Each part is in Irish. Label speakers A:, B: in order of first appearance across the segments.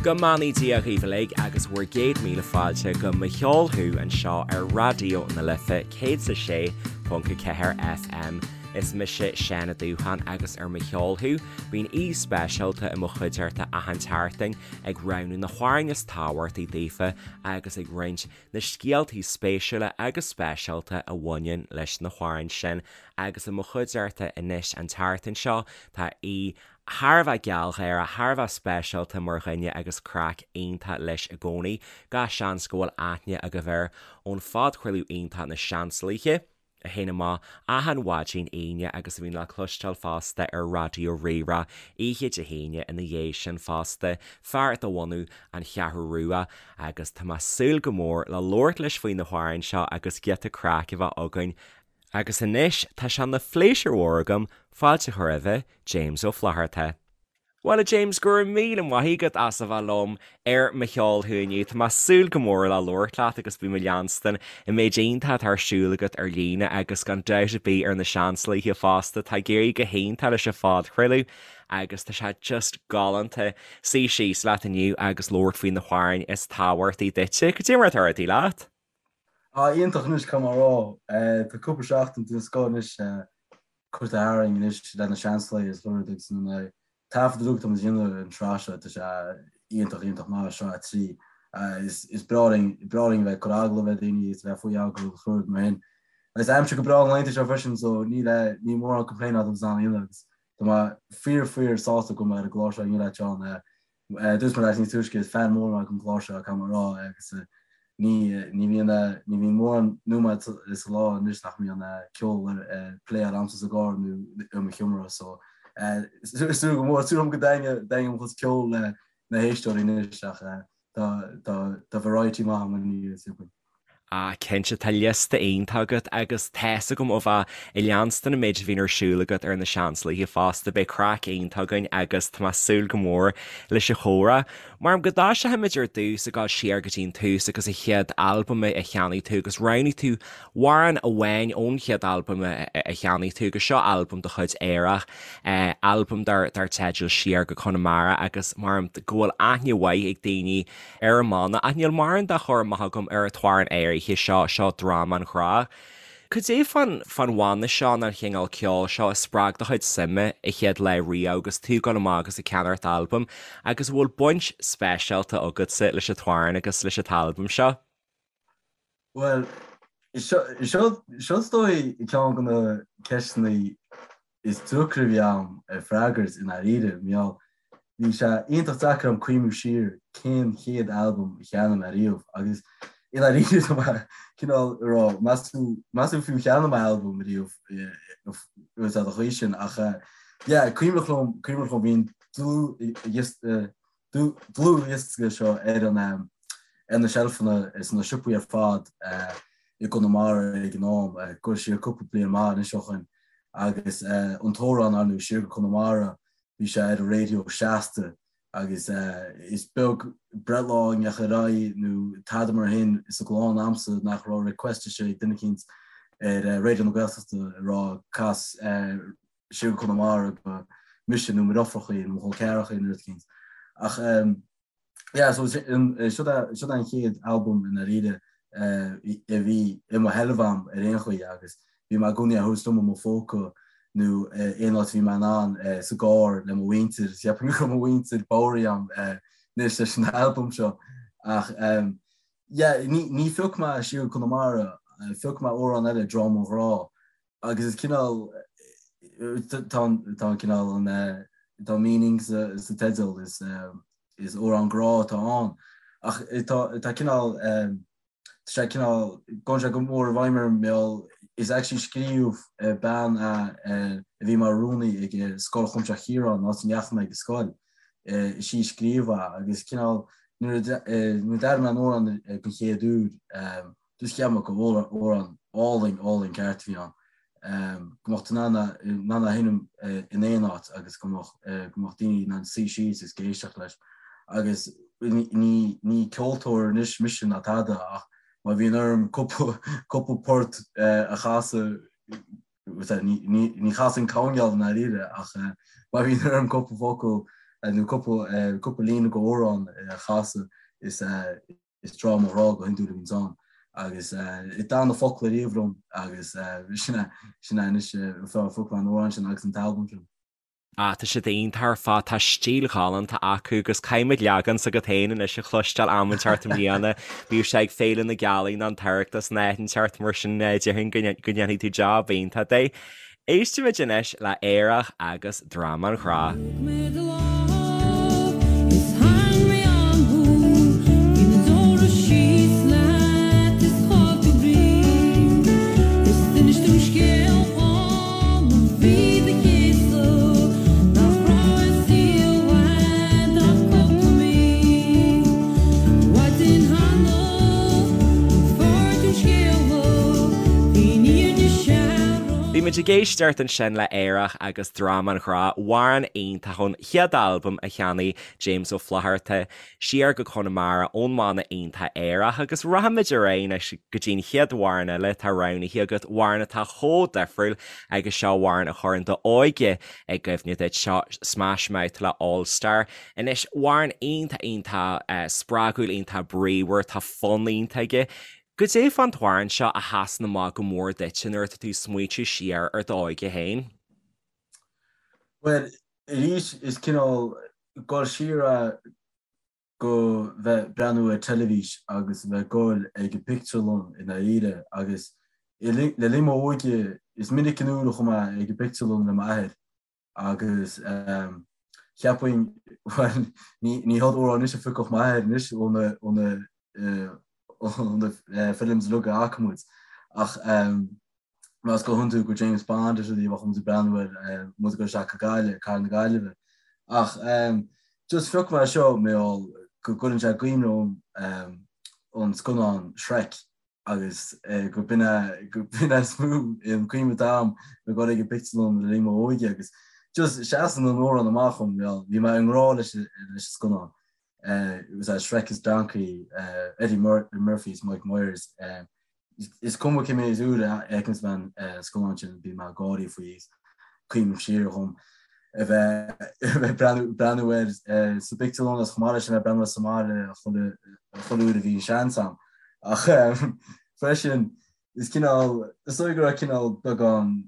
A: Go mbeannaí Dia dhaoibh uilig agus bhur gcéad míle fáilte go Mo Cheol Thú anseo ar Raidió na Life 106.4 FM. Is mise Seán Ó Dúcháin agus ar Mo Cheol Thú bíonn aoi speisialta i mo chuideachta achan tseachtain ag roghnú na hamhráin is tábhachtaí daofa agus ag roinnt na scéaltaí spéisiúla agus speisialta a bhaineann leis na hamhráin sin agus i mo chuideachta anois an tseachtain seo tá aoi thar a bheith gealgháireach, thar a bheith speisialta mar dhuine agus craic iontach leis i gcónaí. Gach seans go bhfuil aithne agaibh air ón phodchraoladh iontach Na Seansálaithe, a théann amach achan mhaidin Aoine agus a bhíonn le cloisteáil fosta ar Raidió Rí-Rá oíche Dé hAoine ina dhiaidh sin fosta. Fear de bhunadh an Cheathrú Rua agus tá mé ag súil go mór le labhairt leis faoi na hamhráin seo agus giota craic a bheith againn Agus anois tá sé ina phléisiúr mhór agam fáilte a chur roimhe, James Ó Flatharta. Bhuel a James, go raibh míle maith agat as a bheith liom ar Mo Cheol Thú inniu. Tá mé ag súil go mór le labhairt leat agus bím ag leanstan an méid iontach atá ar siúl agat ar líne agus gan dabht ar bith ar na Seansálaithe fosta. Tá ag éirí go hiontach leis an phodchraoladh agus tá sé just galánta suí síos leat inniu agus labhairt faoi na hamhráin is tábhachtaí duitse. Cad é mar atá rudaí leat?
B: Ah, iontach anois, caithfidh mé a rá. Tá cúpla seachtain den scoth anois curtha tharainn anois le na Seansálaithe is rud agus an taifead uilig atá muid a dhéanamh ar an tsraith seo, tá sé iontach, iontach maith, sraith 3. Is breá linn, breá linn a bheith ag cur agallamh ar dhaoine is a bheith faoi agallamh is rud mar sin. Agus aimsir go breá na laethanta seo freisin so níl, níl mórán complain agam san aon agus tá mé fíor, fíor sásta go bhfuil mé ar an gclár seo inniu leat Seán. Dúirt mé leat níos túisce, is fan mór mé den gclár seo, caithfidh mé a rá, agus ní ní bhíonn ní bhíonn mórán nóiméad sa lá anois nach mbíonn ceol ar pléáil a'msa sa gcarr nó i mo sheomra, so súil go mór, súil agam go dtaitneoidh mo chuid ceoil le na héisteoirí anois ach tá tá tá variety maith agam inniu, is dóigh.
A: Ah, cinnte, tá liosta iontach agat agus tá's agam ó bheith ag leanstan an méid a bhíonn ar siúl agat ar na Seansálaithe fosta, beidh craic iontach againn agus tá mé ag súil go mór leis an chomhrá. Mar go dtoiseochaimid ar dtús ag dul siar go dtí an tús agus an chéad albam a cheannaigh tú agus roghnaigh tú amhrán amháin ón chéad albam a cheannaigh tú agus seo albam de chuid Aerach, albam dar teideal Siar go Conamara agus mar go bhfuil aithne mhaith ag daoine ar an mbanna, ach níl mórán dá chur amach agam ar an t-amhrán áirithe seo, seo Dráma an Ghrá. Cad é fán fán bhanna seo nó an chineál ceoil seo a spreag do chuid suime a chéad lá riamh agus tú ag dul amach agus ag ceannacht albam agus an bhfuil baint speisialta agatsa leis an t-amhrán agus leis an t-albam seo?
B: Bhuel, seo is dóigh ceann de na ceisteanna is deacra a bhí a'm a freagairt i ndáiríre, mar gheall bhí sé iontach deacair a'm cuimhniú siar cén chéad albam a cheannaigh mé riamh agus i ndáiríre tá mé cineál ag rá meas tú meas tú fiú cheannaigh mé albam riamh sa chaoi sin ach yeah cuimhneach liom cuimhneach liom bhí an dlúthdhiosca dlúthdhiosca seo ar an ar na seilfeanna sna siopaí ar fad i gConamara ag an am, ag dul siar cúpla bliain maith anois ó shoin, agus an t-amhrán ar ndóigh Siar go Conamara, bhí sé ar an raidió seasta agus is beag breithlá a ndeachaigh ar aghaidh nó tada mar shin sa gclann a'msa nach raibh request istigh ag duine eicínt ar Raidió na Gaeltachta ag rá cas Siar go Conamara do mise nó mo dheirfiúrachaí nó mo chol ceathrachaí nó rud eicínt. Ach yeah, so siod é siod é an chéad albam i ndáiríre a bhí i mo sheilbh a'm ar aon chaoi agus bhí mé i gcónaí á thabhairt liom i mo phóca nó aon áit a bhí mé in ann sa gcarr le mo mhuintir, cheapfainn go raibh mo mhuintir bodhraithe a'm anois leis an albam seo ach yeah, ní ní phioc mé Siar go Conamara, phioc mé amhrán eile, Dráma an Ghrá Agus is cineál, tá an cineál an, tá meaning sa teideal, is is amhrán grá atá ann. Ach tá tá cineál, tá sé cineál, gabhann sé go mór i bhfeidhm orm mar gheall, is actually scríobh bean a a bhí mar rúnaí ag Scoil Chuimsitheach Chiaráin, an áit a ndeachaigh mé ag scoil, is í a scríobh é agus cineál nuair a nuair a d'airigh mé an amhrán den chéad uair, Just cheap mé gur amhrán álainn, álainn ceart a bhí ann. Go mbeadh tú in ann in ann a sheinm in aon áit agus go mbeadh go mbeadh daoine in ann suí síos agus éisteacht leis. Agus ní ní ceoltóir anois mise ná tada ach má bhíonn orm cúpla cúpla port a chasadh Ní chasaim coirnéal i ndáiríre ach má bhíonn orm cúpla focal. nó cúpla cúpla líne go amhrán a chasadh is is dráma grá go hiondúil a bhíonns ann agus d'fhan na focla riamh liom agus sin é sin é anois a phioc mé an amhrán sin agus an t-albam sin.
A: Ah, tá siad iontach ar fad, tá stíl ghalánta acu agus caithfimid leagan s'agat féin anois a chloisteáil am inteacht i mbliana. Bíodh sé ag Féile na Gealaí nó an tOireachtas nó áit inteacht mar sin déarfainn go ndéanfaidh tú jab iontach de. Éistfimid anois le Aerach agus Dramán Ghrá. Thug mé do lámh is tharraing mé agam thú, bhí na deora síos leat is chaill tú brí, is d'inis tú scéal dhom a bhí do chéasadh nach raibh i saol uait ach cúpla mí. Maidin cheana an fuair tú scéala, bhí an fhírinne searbh. Bhí muid ag éisteacht ansin le Aerach agus Dramán Ghrá, amhrán iontach ón chéad albam a cheannaigh James Ó Flatharta siar go Conamara ón mbanna iontach Aerach agus rachaimid ar aghaidh anois go dtí an chéad amhrán eile atá roghnaithe agat, amhrán atá chomh difriúil agus seo amhrán a chuireann d'óige i gcuimhne duit, seo Smash Mouth le All Star. Anois, amhrán iontach iontach spreagúil, iontach bríomhar, tá fonn iontach aige. Goidé fán t-amhrán seo a sheasann amach go mór duitse nuair atá tú ag smaoitiú siar ar d'óige féin?
B: Bhuel, arís is cineál dul siar é go bheith breathnú ar teilifís agus a bheith ag goil ag an pictiúrlann i ndáiríre agus le linn m'óige is minic an uair a chuaigh mé ag an bpictiúrlann le m'athair agus cheapfainn, bhuel, ní hiad amhráin anois a phiocfadh m'athair anois ó na ó na ó na films uilig a fhaca muid ach más go hiondúil go James Bond is rudaí a bheadh muid ag breathnú air muid ag dul isteach go Gaillimh, Cathair na Gaillimhe. Ach just phioc mé seo mar gheall go gcuireann sé i gcuimhne dhom an scannán Shrek agus go b'in é go b'in é is mó an cuimhne atá agam ag dul ag an bpictiúrlann le linn m'óige agus just seasann an amhrán amach dhom bhuel bhí mé i ngrá leis leis an scannán. It was Shrek is Donkey, Eddie Murphy is Mike Myers. Is cuma cé mhéad uair a fheiceanns mé an scannán sin bím ag gáirí faoi is cuimhním siar dhom a bheith breathnú air sa bpictiúrlann agus chomh maith leis sin a bheith breathnú air sa mbaile chuile uair a bhí an seans agam. Ach freisin is cineál, is dóigh go raibh cineál beagán,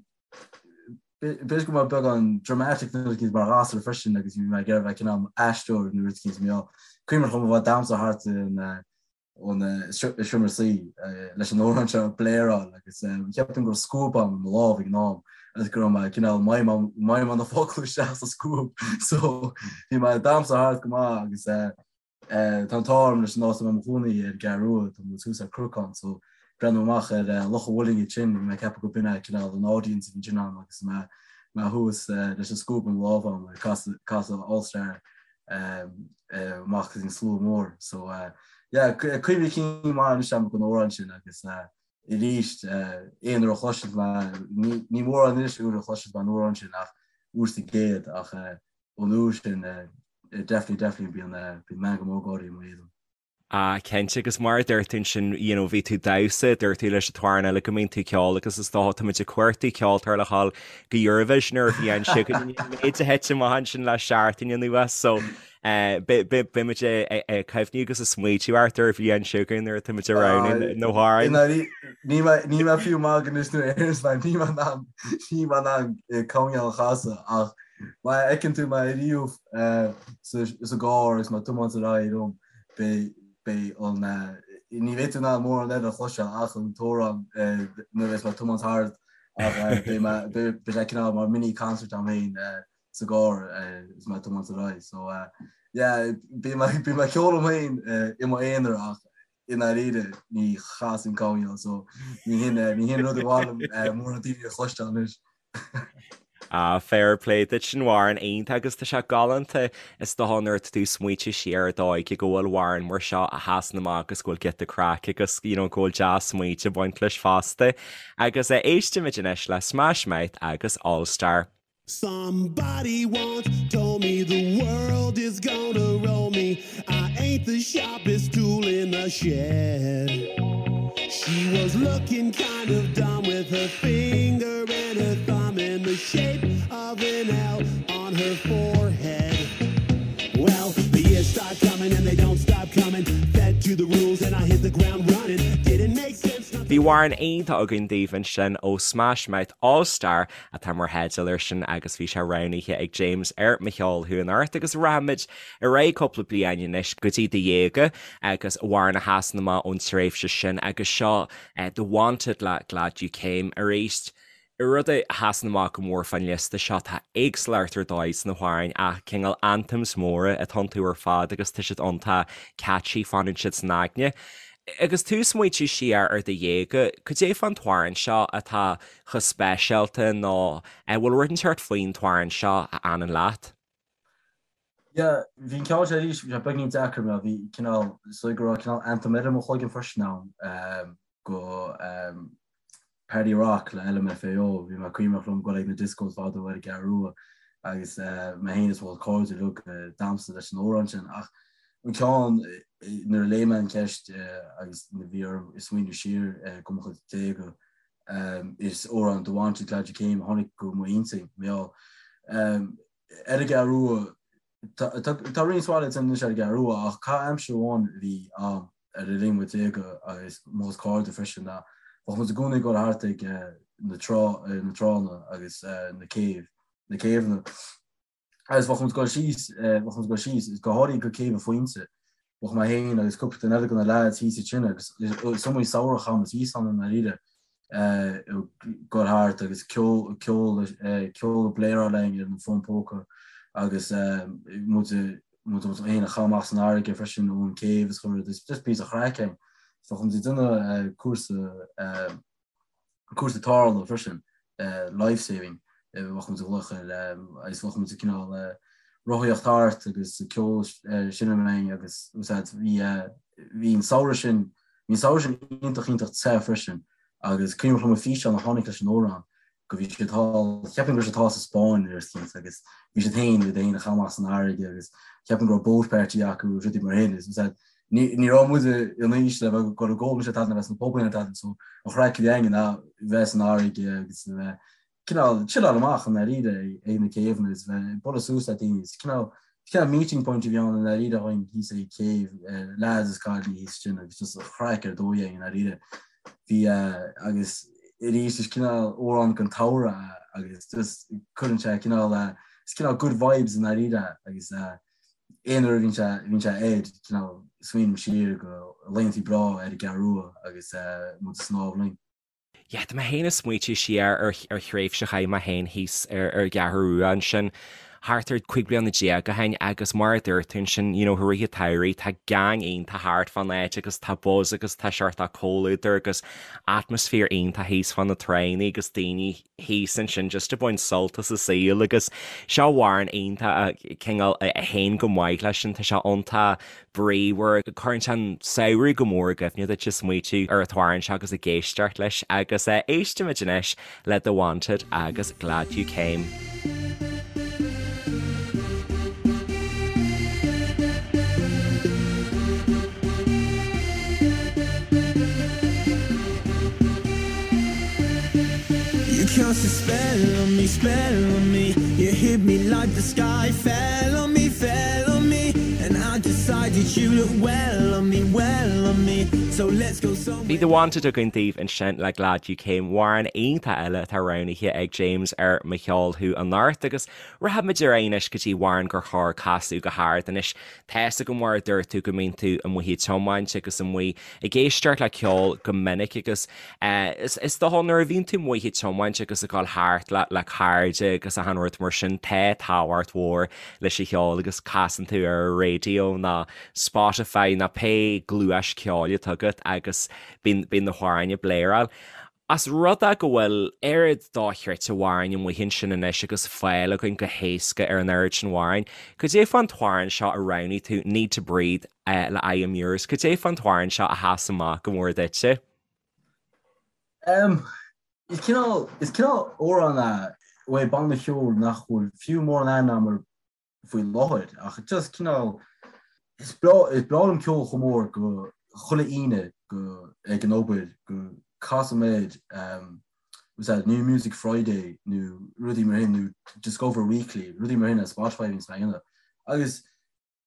B: b'fhéidir go raibh mé beagán dramatic nó rud eicínt mar ghasúr freisin agus bhí mé ag iarraidh bheith cineál aisteoir nó rud eicínt mar cuimhin liom a bheith ag damhsa thart in ón seomra suí leis an amhrán seo ag bléaráil agus cheapfainn go raibh scuab agam i mo lámh ag an am agus go raibh mé cineál ag maidhmeáil na focla isteach sa scuab so bhí mé ag damhsa thart go maith agus tá an t-ádh orm leis an áit a bhfuil mé i mo chónaí ar an gCeathrú Rua, tá muid thuas ar cnocán so breathnú amach ar Loch an Mhuilinn ansin bhí mé ag ceapadh go b'in é cineál an audience a bhí ansin agam agus mé mé thuas leis an scuab i mo lámh agam ag casadh All Star amach go dtí an slua mór. So yeah, cuimhní cinn maith anois agam den amhrán sin agus arís aon uair a chloiseann mé, ní mórán anois uair a chloiseann mé an amhrán sin ach uair sa gcéad ach ón uair sin definitely definitely bíonn bíonn meangadh mór gáirí i m'éadan.
A: Ah, cinnte, agus mar a dúirt tú ansin, you know, bhí tú ag damhsa, dúirt tú leis an t-amhrán eile go mbíonn tú ag ceol agus is dócha tá muid ag cuartú ceoltóir le dhul go Eurovision ar an bhliain seo chugainn, an méid a thit amach ansin le seachtain anuas, so eh, beidh muid ag cuimhniú agus ag smaoitiú ort ar an bhliain seo chugainn nuair atá muid ag roghnú na
B: hamhráin. Níl mé níl mé fiú maith anois nuair a éiríonn mé, níl mé in ann níl mé in ann coinneáil a chasadh ach má fheiceann tú mé ariamh sa gcarr agus mé ag tiomáint ar aghaidh liom, beidh an, ní bheidh tú in ann mórán eile a chloisteáil ach an t-amhrán nuair a bheas mé ag tiomáint thart ach beidh mé, beidh sé cineál mar mini concert agam féin sa gcarr is mé ag tiomáint ar aghaidh. So yeah, bím ag ceol liom féin i m'aonar ach i ndáiríre ní chasaim coinneal so ní hin ní hin rud a ba mhaith liom mórán daoine a chloisteáil anois.
A: Ah, fair play duit sin amhrán iontach agus tá sé galánta is dócha nuair atá tú ag smaoitiú siar ar d'óige go bhfuil amhrán mar seo a sheasann amach agus go bhfuil giota craic agus you know go bhfuil dea-smaointe ag baint leis fosta. Agus eh, éistimid anois le Smash Mouth agus All Star. Somebody once told me the world is gonna roll me I ain't the sharpest tool in the shed. She was looking kind of dumb with her finger and her thumb in the shape of an L on her forehead. Bhí amhrán iontach againn daoibh ansin ó Smash Mouth All Star atá mar theideal air sin agus bhí sé roghnaithe ag James ar Mo Cheol Thú Anocht agus rachaimid ar aghaidh cúpla bliain anois go dtí do dhéaga agus amhrán a sheasann amach ón tréimhse sin agus seo The Wanted le Glad You Came arís. Rud a sheasann amach go mór fán liosta seo, tá éagsúlacht ar dóigh sna hamhráin ach cineál anthems móra atá iontu ar fad agus tá siad iontach catchy, fanann siad san aigne. Agus tú ag smaointiú siar ar do dhéaga, cad é fán t-amhrán seo atá chomh speisialta nó an bhfuil rud inteacht faoin t-amhrán seo a fhanann leat?
B: Yeah, bhí an ceann seo arís, bhí sé beagnín deacair mar bhí cineál, is dóigh go raibh cineál anthem eile i mo chloigeann freisin ann go Party Rock le LMFAO, bhí mé cuimhneach liom dul ag na discos fadó ar an gCeathrú Rua agus mé féin is mo chuid cairde uilig ag damhsa leis an amhrán sin ach an ceann nuair a léigh mé an cheist agus nuair a bhí orm smaoineamh siar go mo chuid déaga is amhrán The Wanted Glad You Came a tháinig go m'intinn, mar gheall ar an gCeathrú Rua Tá roinnt mhaith anois ar an gCeathrú Rua ach caitheamh aimsire amháin a bhí ann ar le linn mo dhéaga agus mo chuid cairde freisin ná bheadh muid i gcónaí ag dul thart ag na trá na tránna agus na céibh na céibheanna agus bheadh muid ag dul síos bheadh muid ag dul síos go háirithe go Céibh an Phointe bheadh mé féin agus cúpla duine eile de na leaids thíos ansin agus is iomaí samhradh a chaith muid thíos ann i ndáiríre ag dul thart agus ceol ceol ceol ag bléaráil linn ar an bhfón póca agus muid muid féin a chaitheamh amach san fharraige freisin ón céibh is chuile rud is just píosa chraic againn. So bheadh muid ag déanamh cúrsa cúrsa tarrthála freisin life saving bheadh muid ag glaoch air agus bheadh muid ag cineál rothaíocht thart agus ceol seinm linn agus úsáid bhí bhí an samhradh sin Bhí an samhradh sin iontach iontach te freisin agus cuimhneach liom an físeán a tháinig leis an amhrán go bhí siad thall, cheapfainn go raibh siad thall sa Spáinn ar eicínt agus bhí siad féin iad féin a chaitheamh amach san fharraige agus cheapfainn go raibh boat party acu agus rudaí mar sin is that ní ní raibh muid in aois le bheith ag dul ag ól ná tada ná bheith sna pubanna ná tada so an chraic a bhí againn ná bheith san fharraige agus a bheith cineál chilleáil amach i ndáiríre ag na céibheanna is bheith ag bualadh suas le daoine. Is cineál cineál meeting point a bhí ann i ndáiríre againn thíos ag céibh, lads is cailíní thíos ansin agus just an chraic ar dóigh againn i ndáiríre. Bhí agus arís is cineál amhrán den tsamhradh é agus just cuireann sé cineál is cineál good vibes i ndáiríre agus aon uair a bhíonn sé bhíonn sé air cineál smaoiním siar go laethanta breá ar an gCeathrú Rua agus muid ag snámh linn.
A: Yeah, tá mé féin ag smaoitiú siar ar ar thréimhse a chaith mé féin thíos ar ar an gCeathrú Rua ansin thart ar 15 bliana ó shin agus mar a dúirt tú ansin, you know, i rith an tsamhraidh tá gang iontach thart fán áit agus tá buzz agus tá seort comhluadar agus atmaisféar iontach thíos fá na tránna agus daoine thíos ansin just ag baint sult as an saol agus seo amhrán iontach a cineál a théann go maith leis sin, tá sé iontach bríomhar. Cuireann sé an samhradh go mór i gcuimhne duit ag smaoitiú ar an t-amhrán seo agus ag éisteacht leis agus éistimid anois le The Wanted agus Glad You Came.
C: You cast a spell on me, spell on me You hit me like the sky fell on me, fell on me And I decided you look well on me, well on me So let's go somewhere
A: Bhí The Wanted againn daoibh ansin le Glad You Came, amhrán iontach eile atá roghnaithe ag James ar Mo Cheol Thú anocht agus rachaimid ar aghaidh anois go dtí amhrán gur chóir casadh go hard anois. Tá's agam mar a dúirt tú go mbíonn tú amuigh ag tiomáint agus amuigh ag éisteacht le ceol go minic agus is dócha nuair a bhíonn tú amuigh ag tiomáint agus ag dul thart le le cairde agus achan rud mar sin tá tábhacht mhór leis an cheol agus casann tú ar an raidió nó Spotify nó pé gluais ceoil atá agat agus bíonn bíonn na hamhráin ag bléaráil. Ós rud é go bhfuil oiread dochreidte amhráin amuigh ansin anois agus fáil againn go héasca ar an oiread sin amhráin, cad é fán t-amhrán seo a roghnaigh tú, Need to Breathe le I Am Yours, cad é fán t-amhrán seo a sheas amach go mór duitse?
B: Em, is cineál, is cineál amhrán é uaidh banna cheoil nach bhfuil fiú mórán aithne agam air faoi láthair ach just cineál is breá is breá liom ceol chomh mór go chuile Aoine go ag an obair go casaim air um, was that New Music Friday nó rudaí mar sin nó Discover Weekly rudaí mar sin ar Spotify bhíonns mé a dhéanamh agus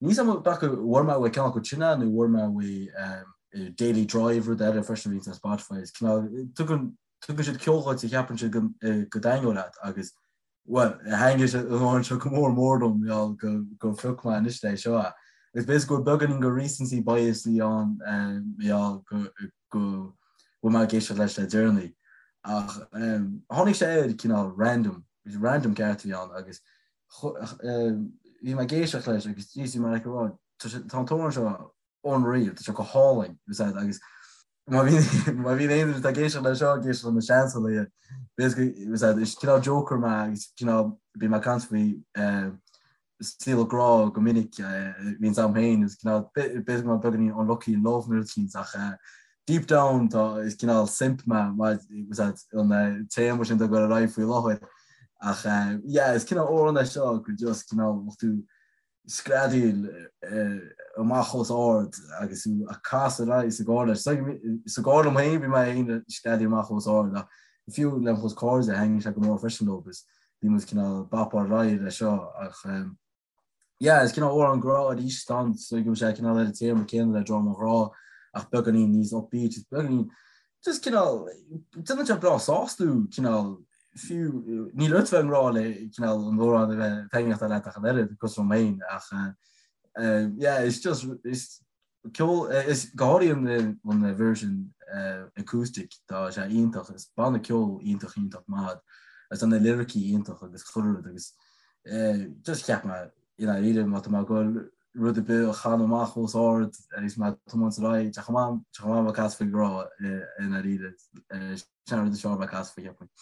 B: níl 's agam b'fhéidir go bhfuair mé uaidh ceann acu sin é nó bhfuair mé uaidh um, Daily Drive rud eile freisin a bhíonns ar Spotify is cineál tugann tugann siad ceol dhuit a cheapann siad go go dtaitneodh leat agus bhuel thaitnigh sé an amhrán seo go mór mór dom mar gheall go go phioc mé anois é seo é. Agus b'fhéidir go bhfuil beagáinín de recency bias ann mar gheall go go bhfuil mé ag éisteacht leis le deireanaí. Ach tháinig sé air cineál random, random ceart a bhí ann agus bhí mé ag éisteacht leis agus jeez bhí mé like ag rá tá an t-amhrán seo unreal, tá sé go hálainn agus má bhíonn má bhíonn aon duine atá ag éisteacht leis seo ag éisteacht le na seansálaithe b'fhéidir is cineál joker mé agus cineál bím ag caint faoi saol grá go minic bhíonns a'm féin is cineál b'fhéidir go mbeadh beagáinín unlucky in love nó rud eicínt ach deep down tá is cineál simp mé an téama sin ag dul ar aghaidh faoi láthair ach yeah is cineál amhrán é seo go just cineál tú screadaíl amach os ard agus tú ag casadh ar aghaidh sa gcarr leis. Sa gcarr liom féin bhí mé féin ag screadaíl amach os ard ach fiú le mo chuid cairde thaitnigh sé go mór freisin leo agus bhí muid cineál bopáil ar aghaidh leis seo ach yeah is cineál amhrán grá arís ann so go bhfuil sé cineál ar an téama céanna le Drum an Ghrá ach beagáinín níos upbeat is beagáinín just cineál déanann sé breá sásta thú cineál fiú níl ort bheith i ngrá le cineál an amhrán a bheith taitneamhach leat ach an oiread cosúil liom féin ach yeah it's just is ceol is go háirithe an version acoustic tá sé iontach is banna ceoil iontach iontach maith agus tá na liricí iontach agus chuile rud agus just cheap mé i ndáiríre má tá mé ag goil rud ar bith a chanadh amach os ard agus mé ag tiomáint ar aghaidh, tá chomh maith tá chomh maith bheith ag casadh faoi ghrá i ndáiríre. Sin an rud is fearr bheith ag casadh faoi cheapfainn.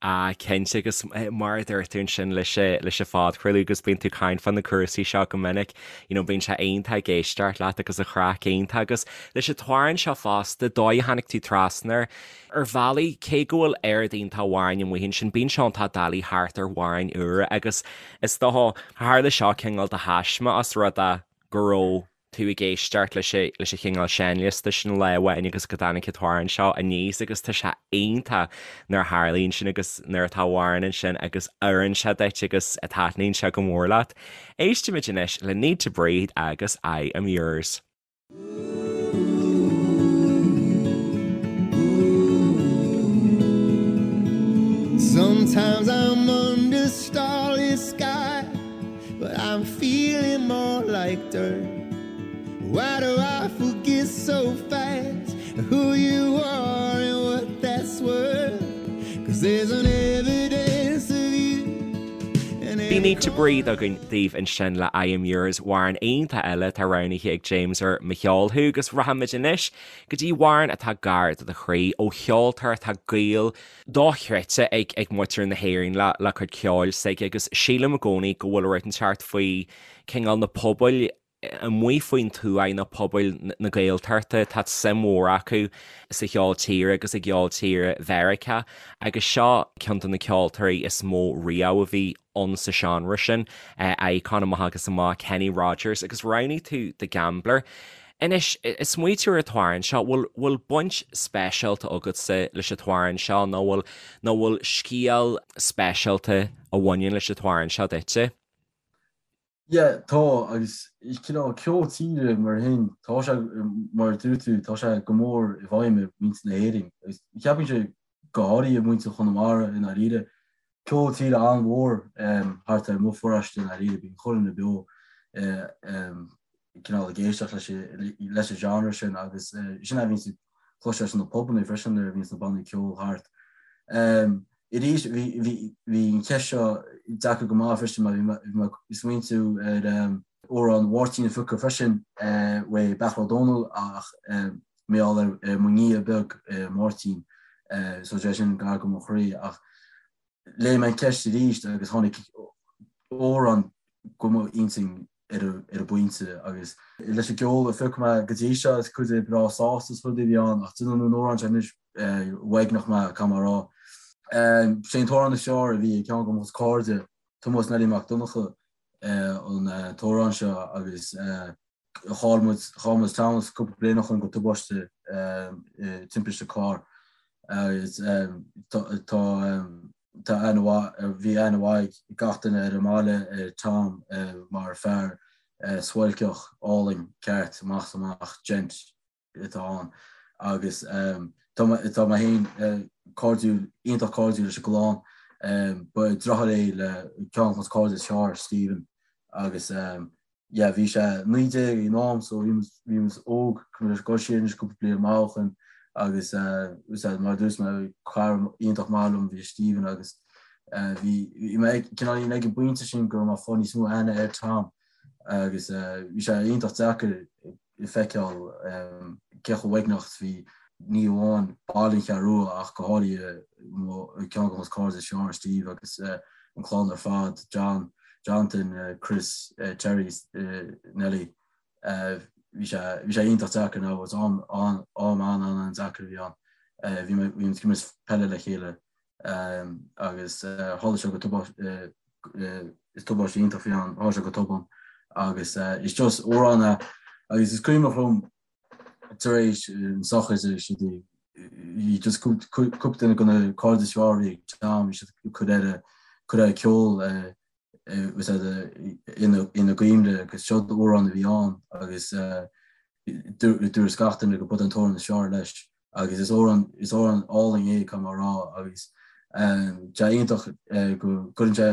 A: Ah, cinnte, agus mar a dúirt tú ansin leis leis an phodchraoladh agus bíonn tú ag caint fá na cúrsaí seo go minic, you know, bíonn sé iontach ag éisteacht leat agus an chraic iontach agus leis an t-amhrán seo fosta, dóigh a tháinig tú trasna air, Ar bhealaí, cé go bhfuil oiread iontach amhráin amuigh ansin, bíonn sé iontach doiligh theacht ar amhráin úra agus is dócha, tharla seo cineál de thaisme os rud é go raibh tú ag éisteacht leis leis an chineál seinnliosta sin lá amháin agus go dtáinig an t-amhrán seo aníos agus tá sé iontach nuair a tharlaíonn sin agus nuair atá amhrán ansin agus oireann sé duit agus taitníonn sé go mór leat. Éistimid anois le Need to Breathe agus I Am Yours.
C: Sometimes I'm under starlit sky But I'm feeling more like dirt Why do I forget so fast Who you are and what that's worth Cause there's an evidence of you
A: Bhí Need to Breathe againn daoibh ansin le I Am Yours, amhrán iontach eile atá roghnaithe ag James ar Mo Cheol Thú agus rachaimid anois go dtí amhrán atá gar do do chroí ó cheoltóir atá gaol dochreidte ag ag muintir na hÉireann le le cuid ceoil s'aige agus sílim i gcónaí go bhfuil rud inteacht faoi cineál na pobail amuigh faoin tuath nó pobail na Gaeltachta, tá suim mhór acu sa cheol tíre agus i gceol tíre Mheiriceá agus seo ceann de na ceoltóirí is mó riamh a bhí ann sa seánra sin, icon amach agus amach, Kenny Rogers agus roghnaigh tú The Gambler. Anois, ag smaoitiú ar an t-amhrán seo, bhfuil bhfuil baint speisialta agatsa leis an t-amhrán seo nó bhfuil nó bhfuil scéal speisialta a bhaineann leis an t-amhrán seo duitse?
B: Yeah, tá, agus cineál ceol tíre mar sin, tá sé, mar a dúirt tú, tá sé go mór i bhfeidhm ar mhuintir na hÉireann. Agus cheapfainnse go háirithe muintir Chonamara i ndáiríre. Ceol tíre an-mhór thart ar mo pharóiste i ndáiríre, bíonn chuile dhuine beo cineál ag éisteacht leis an genre sin agus sin a bhíonns ag cloisteáil sna pubanna freisin nuair a bhíonns na bannaí ceoil thart. Arís, bhí an cheist seo deacair go maith freisin mar bhí mé ag smaointiú ar amhrán Mháirtín a phiocadh freisin uaidh Beairtle Ó Domhnaill ach mar gheall ar mo nia beag Máirtín so sé sin gar go mo chroí ach léigh mé an cheist arís agus tháinig amhrán go mo intinn ar an bpointe agus leis an gceol a phioc mé go dtí seo is cuid de breá sásta is rudaí a bhí ann ach déanann an amhrán seo anois uaigneach mé caithfidh mé a rá. Sé an t-amhrán is fearr a bhí ag ceann de mo chuid cairde, Tomás Neilí Mac Donncha an t-amhrán seo agus chaill muid chaill muid Tomás cúpla bliain ó shin go tubaiste timpiste cairr agus tá tá aithne mhaith bhí aithne mhaith ag gach duine ar an mbaile ar Tom mar fear suáilceach álainn ceart amach is amach gent. atá ann agus tá tá mé féin cairdiúil, iontach cairdiúil leis an gclann. Ba deartháir é le ceann de mo chairde is fearr, Stephen, agus yeah bhí sé 19 ag an am so bhí muid bhí muid óg, ag dul siar anois cúpla bliain amach ó shin agus mar a dúirt mé cara iontach maith liom bhí Stephen agus bhí bhí mé ag cineál ag an bpointe sin go raibh mé ag fáil níos mó aithne ar Tom agus bhí sé iontach deacair feiceáil cé chomh uaigneach is bhí ní amháin baill an Cheathrú Rua ach go háirithe ceann de mo chairde is fearr, Steve agus an chlann ar fad, John, Jonathan, Chris, Terry, Nelly. Bhí sé bhí sé iontach deacair now it was am am an an-an-deacair a bhí ann. Bhí mé bhí muid ag imirt peile le chéile agus tharla sé go tubaiste is tubaiste iontach a bhí ann, tharla sé go tobann agus is just amhrán é agus is cuimhneach liom tar éis an sochraid agus siad bhí just cúpla duine de na cairde is fearr a bhí ag Tom, bhí siad ag cur air cur air ceol ina gcuimhne agus seo amhrán a bhí ann agus dúirt gach duine go b'é an t-amhrán is fearr leis agus is amhrán is amhrán álainn é caithfidh mé a rá agus tá sé iontach go gcuireann sé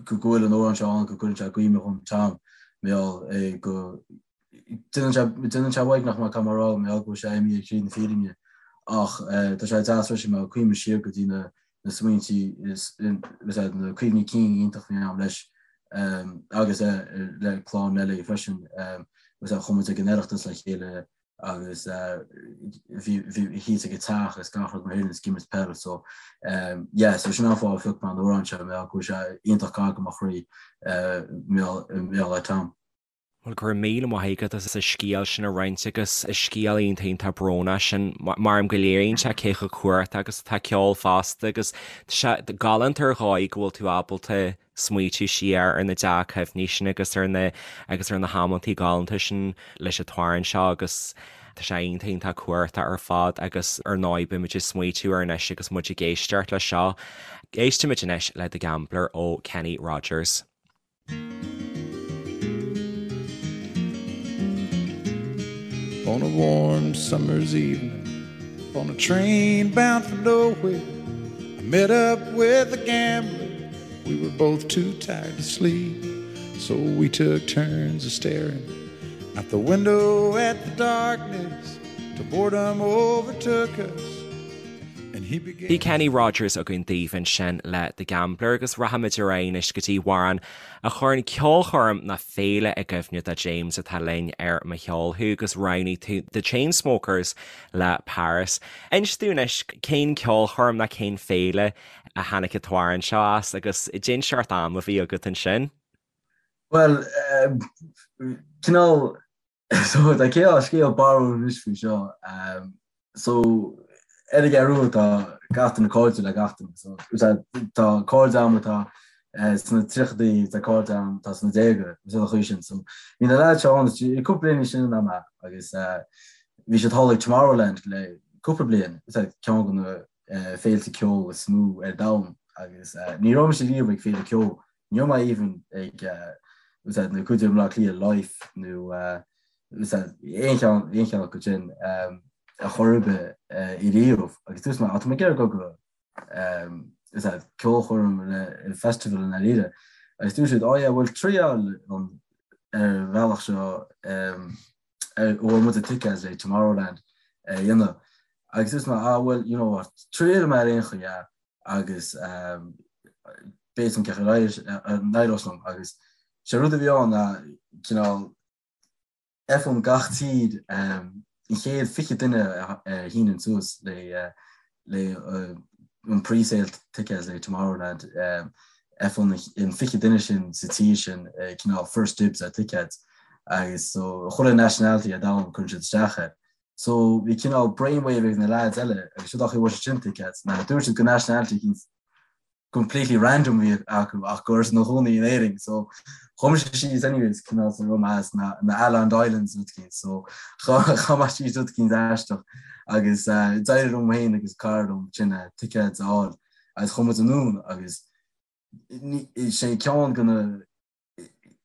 B: go bhfuil an amhrán seo ann go gcuireann sé i gcuimhne dhom Tom mar gheall go déanann sé déanann sé uaigneach mé caithfidh mé a rá mar gheall go bhfuil sé imithe thríd na fírinne ach tá sé deas freisin mar cuimhním siar go dtí na na smaointí is na cuimhní cinn iontach a bhí agam leis agus le clann Nelly freisin agus chuaigh muid ag an Oireachtas le chéile agus bhí thíos ag a teach agus gach rud mar sin is ag imirt peil so yeah so sin an fáth a phioc mé an amhrán seo mar go bhfuil sé iontach gar do mo chroí mar gheall ar Tom.
A: Bhuel, go raibh míle maith agat as an scéal sin a roinnt agus is scéal iontach iontach brónach sin mar go léiríonn sé cé chomh cumhachtach agus atá ceol fosta agus tá sé galánta ar dhóigh go bhfuil tú ábalta smaoitiú siar ar na dea-chuimhní sin agus ar na agus ar na hamantaí galánta sin leis an t-amhrán seo agus tá sé iontach iontach cumhachtach ar fad agus ar ndóigh beimid ag smaoitiú air anois agus muid ag éisteacht leis seo. Éistimid anois le The Gambler ó Kenny Rogers.
C: On a warm summer's evening, on a train bound for nowhere, I met up with a gambler. We were both too tired to sleep, so we took turns of staring out the window at the darkness till boredom overtook us.
A: Bhí Kenny Rogers againn daoibh ansin le The Gambler agus rachaimid ar aghaidh anois go dtí amhrán a chuireann ceolchoirm nó féile i gcuimhne do James atá linn ar Mo Cheol Thú agus roghnaigh tú The Chainsmokers le Paris. Inis dúinn anois cén ceolchoirm nó cén féile a tháinig an t-amhrán seo as agus cén seort am a bhí agat ansin.
B: Bhuel, cineál So tá cineál scéal barrúil anois faoi seo. So ar an gCeathrú Rua tá gach duine cairdiúil le gach duine. So tá cairde agam atá sna tríochadaí, tá cairde agam atá sna déaga, is an chaoi sin. So bhí na leaids seo ann cúpla bliain níos sine ná mé agus bhí siad thall ag Tomorrowland le cúpla bliain, is é ceann de na féilte ceoil is mó ar domhan agus ní raibh mise riamh ag féile ceoil Ní raibh mé even ag na cuid i mBleá Cliath Life nó aon cheann aon cheann acu sin ar chor ar bith ariamh agus dúirt mé tá mé ag iarraidh dul go ceolchoirm le festival i ndáiríre agus dúirt siad oh yeah bhuel triail an ar bhealach seo ar a bhfuair muid tickets le Tomorrowland a dhéanamh agus dúirt mé ah well you know what triailfidh mé ar aon chaoi yeah agus b'fhéidir cén chaoi a n-éireos liom agus sé rud a bhí ann ná cineál faigheann gach tír an chéad 20 duine a shíneann suas le le an pre-sale tickets le Tomorrowland faigheann an 20 duine sin sa tír sin cineál first dibs ar tickets agus so chuile nationality ar domhan cuireann siad isteach air. So bhí cineál brainwave ag na lads eile agus siod é an chaoi a bhfuair siad sin tickets ná dúirt siad go nationality eicínt completely random a bhí acu ach go raibh siad ina gcónaí in Éirinn so chuaigh mise síos anyways cineál sa raibh mé as na na Aland Islands rud eicínt so chaith mé síos rud eicínt aisteach agus d'éirigh liom féin agus cara liom sin tickets a fháil agus chuaigh muid anonn agus sé ceann de na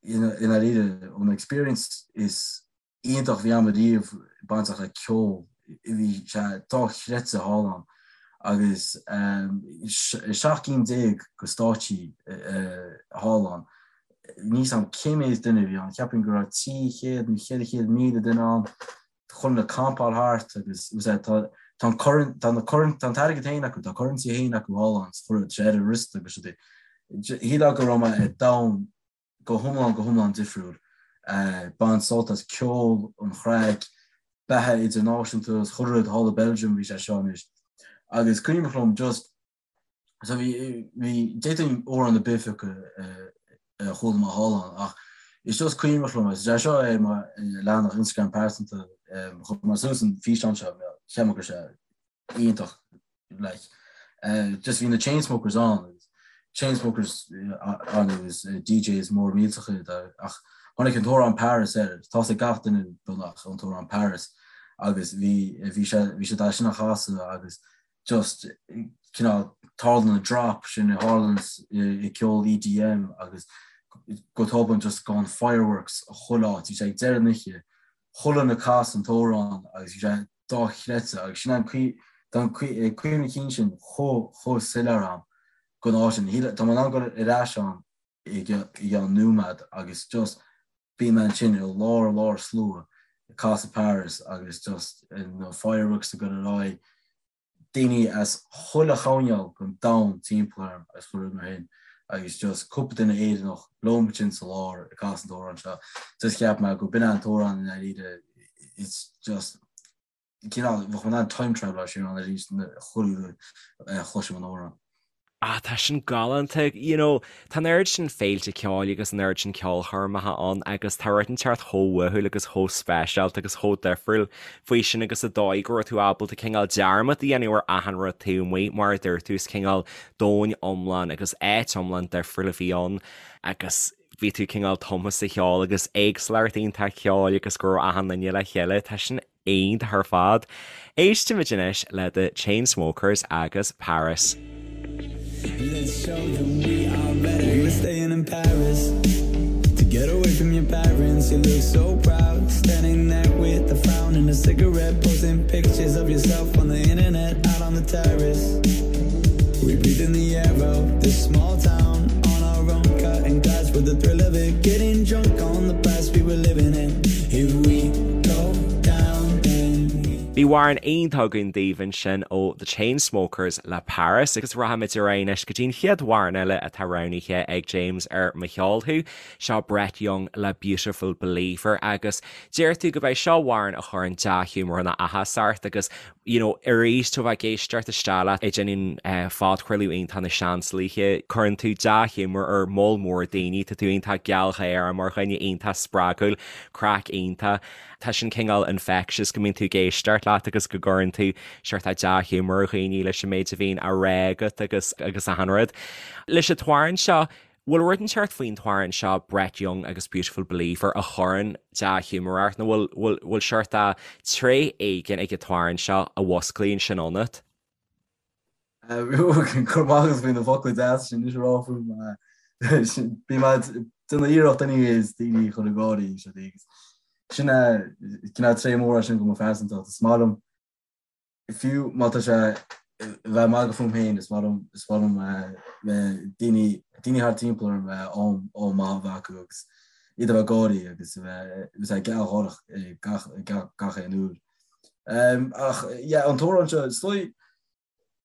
B: i ndáiríre an experience is. iontach a bhí a'm ariamh bainteach le ceol. Bhí sé dochreidte thall ann agus 17 gcinn de stáitsí thall ann. Níl 's a'm cé méid duine a bhí ann, cheapfainn go raibh 300 nó 400,000 duine ann, chuile dhuine ag campáil thart agus tá an tá na tá an t-airgead féin acu, tá currency féin acu thall ann, chuir sé ar a wrist agus rudaí. Shílfeá go raibh mé i domhan go hiomlán, go hiomlán difriúil. Baint sult as ceol, an chraic, beatha idirnáisiúnta is chuile rud thall i Belgium bhí sé seo anois. Agus cuimhneach liom just, so bhí, bhí, d'fhéadfainn amhrán ar bith a phiocadh a chuala mé thall ann ach is just cuimhneach liom, is é seo ar mo leathanach Instagram pearsanta, chuir mé suas an físeán seo, cheap mé go raibh sé iontach like just bhí na Chainsmokers ann agus Chainsmokers ann agus DJs mór millteacha iad ach tháinig an t-amhrán Paris air tá's ag gach duine beagnach an t-amhrán Paris agus bhí bhí sé bhí siad é sin a chasadh agus just cineál tarlaíonn an drop sin a tharlaíonn i ceol EDM agus go tobann just gabhann fireworks chuile áit bhí sé ag deireadh na hoíche chuile dhuine ag casadh an t-amhrán agus bhí sé dochreidte agus sin an tá an cuimhne cinn sin chomh chomh soiléir a'm den áit sin. Tá mé in ann dul ar ais ann i gceann nóiméad agus just bíonn mé ansin i lár lár slua ag casadh Paris agus just na fireworks ag dul ar aghaidh, daoine as chuile choirnéal den domhan timpeall orm agus chuile rud mar shin agus just cúpla duine Éireannach liom ansin sa lár ag casadh an t-amhrán seo. Just cheap mé go b'in an t-amhrán i ndáiríre it's just cineál bheadh mé in ann time travel siar ann arís chuile uair a chloisim an amhrán.
A: Ah, tá sin galánta. You know, tá an oiread sin féilte ceoil agus an oiread sin ceolchoirmeacha ann agus tá rud inteacht chomh uathúil agus chomh speisialta agus chomh difriúil faoi sin agus an dóigh go raibh tú ábalta cineál dearmad a dhéanamh ar achan rud taobh amuigh, mar a dúirt tú, is cineál domhan iomlán agus áit iomlán difriúil a bhí ann agus bhí tú cineál tumtha sa cheol agus éagsúlacht iontach ceoil agus go raibh achan duine le chéile. Tá sin iontach ar fad. Éistimid anois le The Chainsmokers agus Paris. Let's show them we are better. We were staying in Paris to get away from your parents. You look so proud, standing there with a frown and a cigarette, posting pictures of yourself on the internet, out on the terrace. We breathe in the air of this small town on our own, cutting glass with the thrill of it, getting drunk on the past we were living in. If we go down, then we. Bhí amhrán iontach againn daoibh ansin ó The Chainsmokers le Paris agus rachaimid ar aghaidh anois go dtí an chéad amhrán eile atá roghnaithe ag James ar Mo Cheol Thú, seo Brett Young le Beautiful Believer agus deir tú go b'é seo amhrán a chuireann dea-ghiúmar nó áthas ort agus you know, arís tú a bheith ag éisteacht isteach leat ag déanamh phodchraoladh iontach na Seansálaithe, cuireann tú dea-ghiúmar ar moll mór daoine, tá tú iontach gealgháireach mar dhuine iontach spreagúil, craic iontach. Tá sin cineál infectious go mbíonn tú ag éisteacht leat agus go gcuireann tú seort dea-ghiúmar ar dhaoine leis an méid a bhíonn á rá agat agus agus achan rud. Leis an t-amhrán seo, Bhfuil rud inteacht faoin t-amhrán seo Brett Young agus Beautiful Believer a chuireann dea-ghiúmar ort nó bhfuil, bhfuil, bhfuil seort tréith éigin ag an t-amhrán seo a mhusclaíonn sin ionat?
B: Go raibh maith agat faoi na focla deasa sin anois a rá fúm. Bím ag déanamh iarracht anyways daoine a chur ag gáirí agus sin é cineál tréith mór é sin de mo phearsantacht. Is maith liom fiú má tá sé a bheith ag magadh fúm féin, is maith liom, is maith liom daoine, daoine thart timpeall orm am, am maith a bheith acu agus iad a bheith ag gáirí agus a bheith, a bheith gealgháireach gach, gach, gach aon uair. Ach yeah, an t-amhrán seo, is dóigh,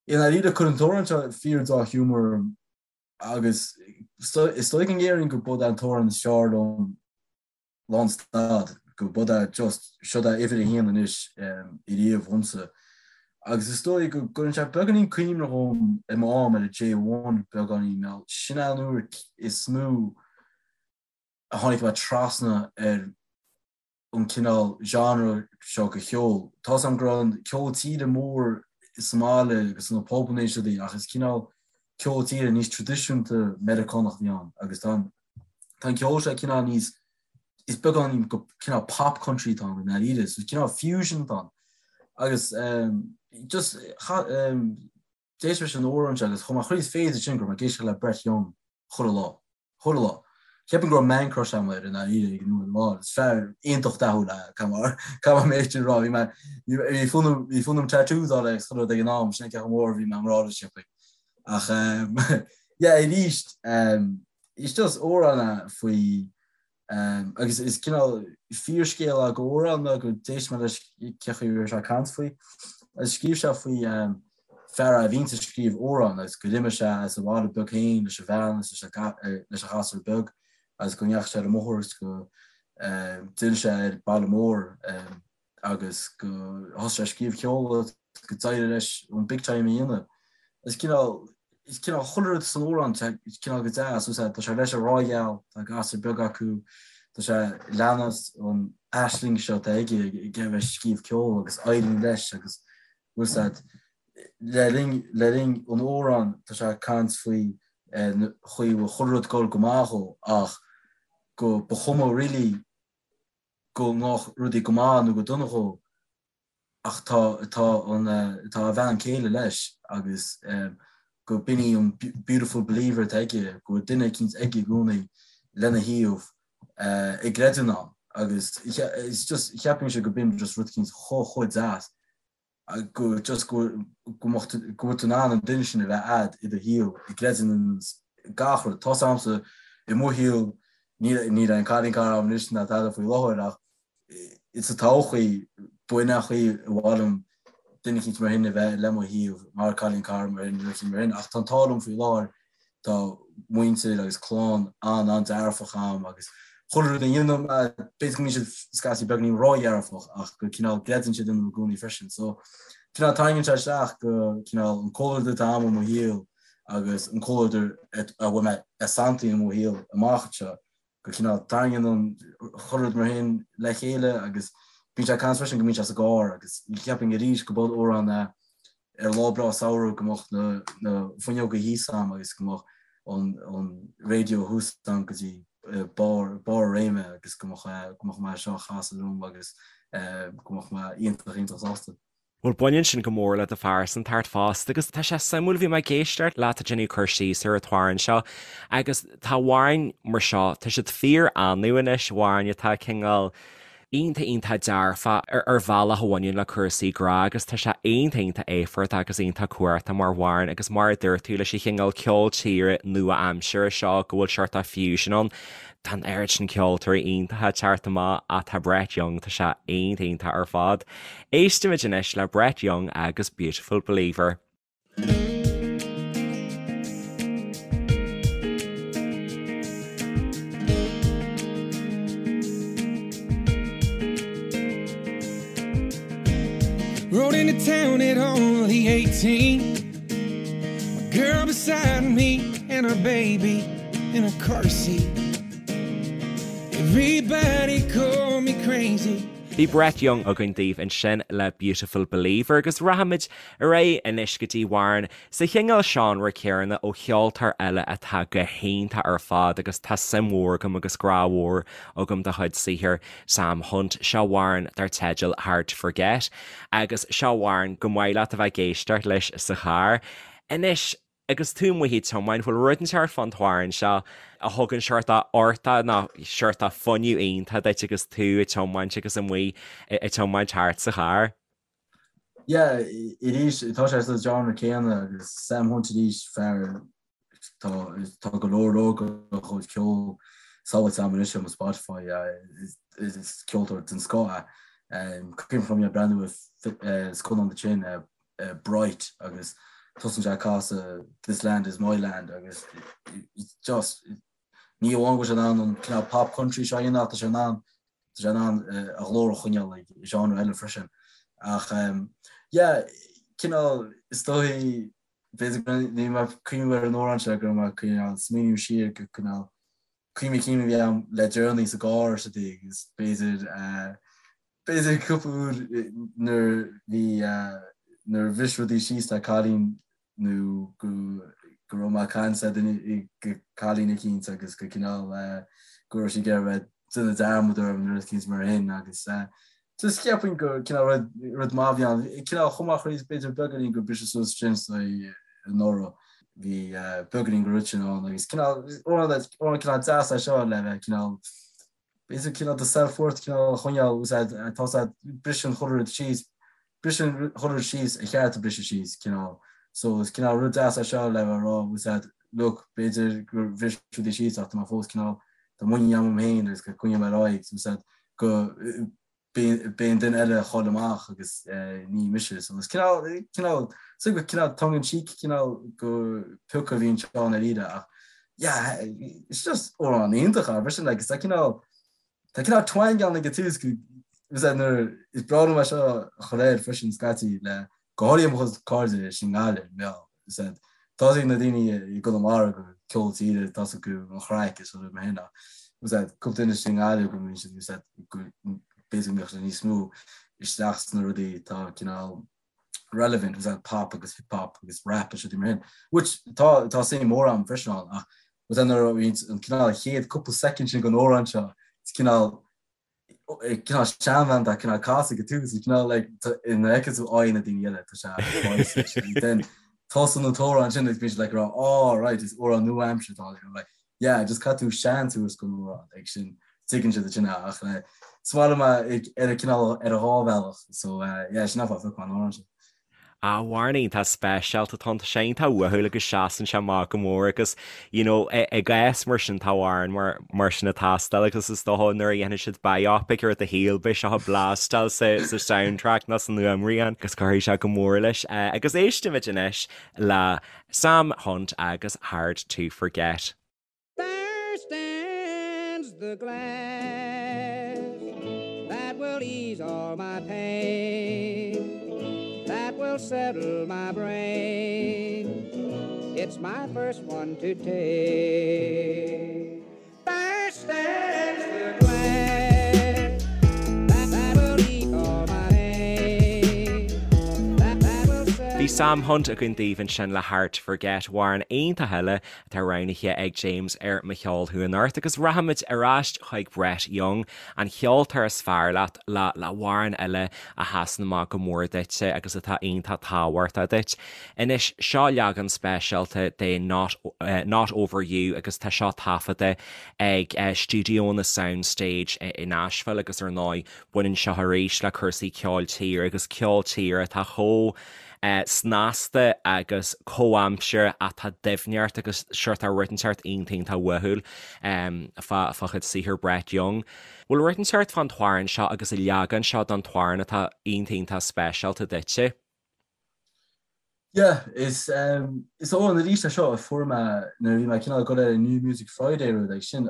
B: i ndáiríre cuireann an t-amhrán seo fíor dea-ghiúmar orm agus is dóigh go ndéarfainn go b'é an t-amhrán is fearr liom lánstad, go b'é é just, seod é uimhir a haon anois ariamh dhomsa. Agus is dóigh go gcuireann sé beagáinín cuimhne dhom i m'am ar an J1 beagáinín, nó sin é an uair is mó a tháinig mé trasna ar an cineál genre seo de cheol. Tá's a'm go raibh an ceol tíre mór sa mbaile agus sna pubanna is rudaí ach is cineál ceol tíre níos traidisiúnta Meiriceánach a bhí ann agus tá an Tá an ceol seo cineál níos, is beagáinín go cineál pop country atá ann i ndáiríre, so cineál fusion atá ann. Agus just d'éist leis an amhrán seo agus chuaigh mé chroí is féidir sin go raibh mé ag éisteacht le Brett Young chuile lá, chuile lá. Cheapfainn go raibh man crush agam air i ndáiríre ag an uair amháin. Is fear iontach dathúil é, caithfidh mé é sin a rá. Bhí mé, bhí fonn orm, bhí fonn orm tattoos a fháil agus chuile rud ag an am, sin é cé chomh mór a bhí mé i ngrá leis, cheapfainn. Ach yeah, arís, is just amhrán é faoi Agus is cineál fíorscéal é go amhrán nó go d'éist mé leis cé chaoi a raibh sé ag caint faoi. Agus scríobh sé faoi fear a bhíonns ag scríobh amhrán agus gur imigh sé as a bhaile beag féin leis a bhean agus leis a ghasúr beag agus go ndeachaigh sé ar an mbóthar agus go d'fhill sé ar baile mór agus go thosaigh sé ag scríobh ceoil agus go d'éirigh leis an big time a dhéanamh. Is cineál, is cineál chuile rud san amhrán, is cineál go deas, is tá sé leis an ghrá gheal, tá gasúr beag acu, tá sé ag leanacht an aisling seo atá aige ag a bheith ag scríobh ceoil agus éiríonn leis agus bhfuil 's a'd, le linn, le linn an amhráin tá sé ag caint faoi chaoi a bhfuil chuile rud ag dul go maith dhó ach go ba chuma really go ngabhadh rudaí go maith nó go dona dhó ach tá tá an tá a bhean chéile leis agus go b'in í an beautiful believer atá aige, go bhfuil duine eicínt aige i gcónaí lena thaobh ag creidiúint ann agus it's just cheapfainnse go b'in just rud eicínt chomh chomh deas. go just go go mbeadh tú go bhfuil tú in ann an duine sin a bheith a'd i do shaol ag creidiúint in gach rud. Tá's a'msa i mo shaol níl níl aon cailín cara a'm anois ná tada faoi láthair ach sa todhchaí b'in an chaoi a mhaith liom duine eicínt mar shin a bheith le mo thaobh mar cailín cara mar shin rud eicínt mar shin ach tá an t-ádh liom faoi láthair Tá muintir agus clann an-an-dearfach a'm agus chuile rud a dhéanaim, b'fhéidir go mbíonn siad scaití beagáinín ródhearfach ach go cineál gcreideann siad ionam i gcónaí freisin. So cineál tarraingíonn sé isteach go cineál an comhluadar atá a'm i mo shaol agus an comhluadar a bhfuil mé ag santú i mo shaol amach anseo go cineál tarraingíonn an chuile rud mar shin le chéile agus bíonn sé ag caint freisin go mbíonn sé sa gcarr agus cheapfainn arís go b'in amhrán é ar lá breá samhraidh go mbeadh na na fuinneoga thíos a'm agus go mbeadh an an raidió thuas a'm go dtí barr barr a réime agus go mbeadh go mbeadh mé seo a chasadh liom agus go mbeadh mé iontach iontach sásta.
A: Bhuel, baineann sin go mór le do phearsantacht fosta agus tá sé suimiúil, bhí mé ag éisteacht leat ag déanamh cur síos ar an t-amhrán seo agus tá amhráin mar seo, tá siad fíor annamh anois, amhráin atá cineál iontach iontach dearfach ar bhealach a bhaineann le cúrsaí grá agus tá sé iontach iontach éifeachtach agus iontach cumhachtach mar amhrán agus mar a dúirt tú leis an chineál ceol tíre nua-aimseartha seo go bhfuil seort of fusion ann. Tá an oiread sin ceoltóirí iontacha ag teacht amach ach tá Brett Young, tá sé iontach iontach ar fad. Éistimid anois le Brett Young agus Beautiful Believer.
C: Rode into town at only 18 My girl beside me and her baby in a car seat Everybody called me crazy
A: Bhí Brett Young againn daoibh ansin le Beautiful Believer agus rachaimid ar aghaidh anois go dtí amhrán sa chineál seánra céanna ó cheoltóir eile atá go hiontach ar fad agus tá suim mhór agam agus grá mhór agam dá chuid saothair, Sam Hunt. Seo amhrán dar teideal Hard to Forget agus seo amhrán go maith leat a bheith ag éisteacht leis sa charr. Anois. Agus tú amuigh ag tiomáint, bhfuil rud inteacht fán t-amhrán seo a thugann seort uchtach nó seort fuinneamh iontach duit agus tú ag tiomáint agus amuigh ag tiomáint thart sa charr?
B: Yeah, arís, tá sé sa genre céanna agus Sam Hunt arís, fear, tá, tá go leor leor dá chuid ceoil sábháilte agam anois ar mo Spotify, is ceoltóir den scoth é. Cuimhin liom é ag breathnú ar scannán ansin, Bright agus tosaíonn sé ag casadh This Land Is My Land agus it's just ní amháin go bhfuil sé in ann an cineál pop country seo a dhéanamh ach tá sé in ann tá sé in ann a ghlór a choinneáil ag genre eile freisin. Ach yeah cineál is dóigh b'fhéidir go ní mé ag cuimhneamh ar an amhrán seo go raibh mé cineál smaoineamh siar go cineál cuimhní cinn a bhí agam le deireanaí sa gcarr sa dtig agus b'fhéidir B'fhéidir cúpla uair nuair bhí nuair a bhris rudaí síos le cailín nó go go raibh mé ag caint le duine go cailín eicínt agus go cineál go raibh sí ag iarraidh bheith déanamh dearmad orm nó rud eicínt mar shin agus just cheapfainn go cineál rud rud maith a bhí ann. Cineál chomh maith chroí b'fhéidir beagáinín gur briseadh suas sin anuraidh. Bhí beagáinín den rud sin ann agus cineál amhrán cineál deas é seo le bheith cineál b'fhéidir cineál do self-worth cineál a choinneáil úsáid tá sé briseann chuile rud síos briseann chuile rud síos ar cheart a briseadh síos cineál so is cineál rud deas é seo le bheith ag rá úsáid look b'fhéidir gur bhris rudaí síos ach tá mé fós cineál tá muinín agam féin agus go coinneoidh mé ar aghaidh úsáid go Beidh an duine eile a chaill amach agus ní mise. So is cineál, cineál, so go cineál tongue in cheek cineál go pioc a bhí anseo i ndáiríre ach yeah, it's just amhrán iontach é freisin like, tá cineál, tá cineál twang ann ag an tús go is é nuair is breá liom é seo a chur air freisin scaití le go háirithe mo chuid cairde i nGaillimh, meá, is é tá ag na daoine i gConamara go ceol tíre tá acu an chraic is rud mar sin ach is é cúpla duine i nGaillimh go mbíonn siad is é go b'fhéidir go mbeadh siad níos mó isteach sna rudaí atá cineál relevant is é pop agus hip hop agus rap is rudaí mar sin which tá tá suim mór agam freisin ann ach is é nuair a bhíonn an cineál chéad cúpla soicind sin den amhrán seo is cineál cineál seanbhean tá cineál casadh ag an tús cineál like ina fheiceann tú aghaidh na daoine eile tá sé then tosaíonn an t-amhrán sin agus bíonn siad like rá oh right is amhrán nua-aimseartha atá ann like yeah just caithfidh tú seans a thabhairt don amhrán ag sin tuigeann siad sin ach le is maith liom ar a cineál ar a dhá bhealach so yeah sin an fáth a phioc mé an amhrán sin.
A: Amhrán iontach speisialta atá ann, tá sé iontach uathúil agus seasann sé amach go mór agus you know i gcás mar sin tá amhrán mar mar sin ag teastáil agus is dócha nuair a dhéanfaidh siad biopic ar do shaol beidh seo ag blastáil sa sa soundtrack nó san fhuaimrian agus cuirfidh sé go mór leis. Agus éistimid anois le Sam Hunt agus Hard to Forget. There stands the glass that will ease all my pain, that will settle my brain. It's my first one to take. There stands the glass that will ease all my pain, that will settle. Bhí Sam Hunt againn daoibh ansin le Hard to Forget, amhrán iontach eile atá roghnaithe ag James ar Mo Cheol Thú Anocht agus rachaimid ar ais chuig Brett Young, an cheoltóir is fearr leat, le le hamhrán eile a sheasann amach go mór duitse agus atá iontach tábhachtach duit. Anois, seo leagan speisialta de Not Not Over You agus tá seo taifeadta ag stiúideonna Soundstage i Nashville agus ar ndóigh baineann seo arís le cúrsaí ceoil tíre agus ceol tíre atá chomh snasta agus comhaimseartha atá doimhneacht agus seort rud inteacht iontach iontach uathúil fá fá chuid saothar Brett Young. Bhfuil rud inteacht fán t-amhrán seo agus an leagan seo den t-amhrán atá iontach iontach speisialta duitse?
B: Yeah, is is amhrán arís é seo a fuair mé nuair a bhí mé cineál ag dul ar an New Music Friday rud ag sin